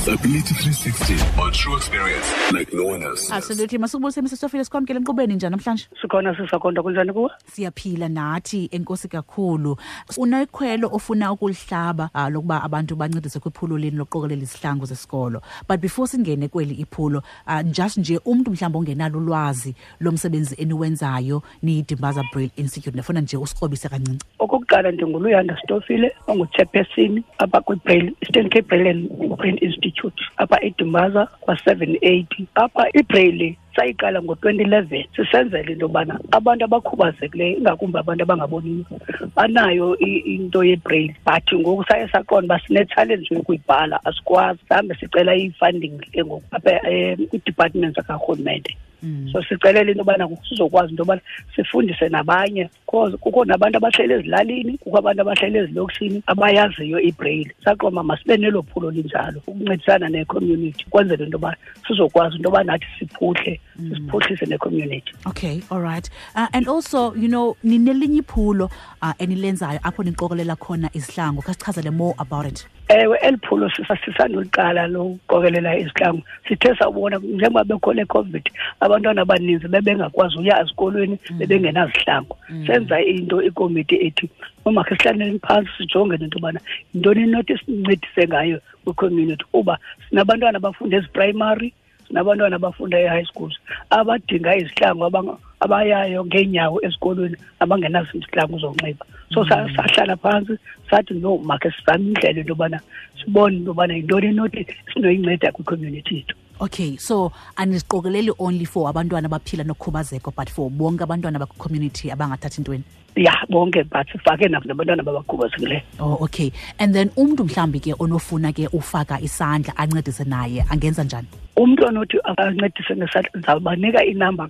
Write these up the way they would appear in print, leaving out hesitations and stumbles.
Disability 360 on True Experience like no one else. Absolutely. Masukubulise Mr Stofile, sikwamkele enkqubeni njani namhlanje? Sikhona sisakonda, kunjani kuwe? Siyaphila nathi, enkosi kakhulu. Unekhwelo ofuna ukulihlaba lokuba abantu bancedise kwiphulo leni lokuqokelela izihlangu zesikolo. But before singene kweli iphulo, just nje umntu mhlawumbi ongenalo ulwazi lomsebenzi eniwenzayo niyiDimbaza Braille Institute, ndifuna nje usikrobise kancinci. Okokuqala ndinguLuyanda Stofile, ongu-chairperson apha kwiBraille, Eastern Cape Braille and Print Institute apha eDimbaza kwa-780. Apha iBraille sayiqala ngo-2011 sisenzela into yobana abantu abakhubazekileyo, ingakumbi abantu abangaboniyo, banayo into yeBraille, but ngoku saye saqonda uba sine-challenge yokuyibhala, asikwazi. Sihambe sicela i-funding ke ngoku apha kwi-department zakarhulumente. So sicelela into yobana sizokwazi into yobana sifundise nabanye, because kukho nabantu abahleli ezilalini, kukho abantu abahleli ezilokishini abayaziyo iBraille. Saqonda masibe nelo phulo linjalo ukuncedisana ne-community kwenzela into yoba sizokwazi into yoba nathi siphuhle, siphuhlise ne-community. Okay, all right. And also, ninelinye iphulo enilenzayo apho niqokelela khona izihlangu. Khasichazele more about it. Ewe, eli phulo sisanduliqala lokuqokelela izihlangu. Sithe sawubona njengoba bekho le COVID, abantwana abaninzi bebengakwazi uya ezikolweni, bebengenazihlangu. Senza into ikomiti ethi umakhe sihlaleni phantsi sijonge nento yobana yintoni enothi sincedise ngayo kwi-community, kuba sinabantwana abafunda eziprimary, sinabantwana abafunda e-high schools abadinga izihlangu, abayayo ngeenyawo esikolweni, abangenazo izihlangu zonxiba. So sahlala phantsi sathi no, makhe sizame indlela into yobana sibone into yobana yintoni enothi sinoyinceda kwi-community yethu. Okay, so aniziqokeleli only for abantwana abaphila nokhubazeko, but for bonke abantwana bakwi-community abangathathi ntweni? Ya, bonke, but sifake nabantwana abakhubazekileyo. Oh, okay. And then umntu mhlawumbi ke onofuna ke ufaka isandla ancedise naye angenza njani? Umntu onothi ancedise ngesandla, ndizawubanika inamba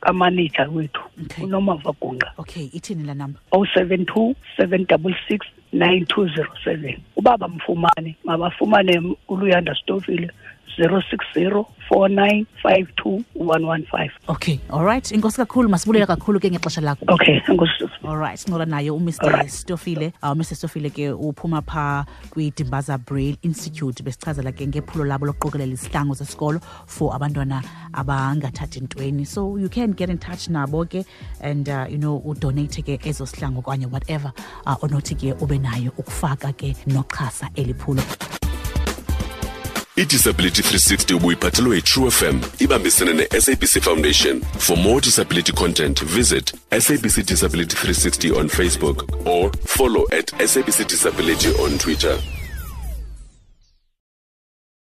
kamanager wethu, uNomava Gungqa. Okay, ithini la number? 072 766 9207. Uba bamfumane, mabafumane uLuyanda Stofile, 060 4952 115. Okay, all right. Enkosi kakhulu, masibulela kakhulu ke ngexesha lakho. Okay, enkosi. All right, sincola naye uMr Stofile. Mr Stofile ke uphuma pha kwiDimbaza Braille Institute, besichazela ke ngephulo labo lokuqokelela izihlangu zesikolo for abantwana abangathathi ntweni. So you can get in touch nabo ke and udonate ke ezo sihlangu okanye whatever onothi ke ube nayo ukufaka ke noxhasa eliphulo. I-Disability 360 ubuyiphathelwe yi-True FM ibambisene ne-SABC Foundation. For more disability content, visit SABC Disability 360 on Facebook or follow at SABC Disability on Twitter.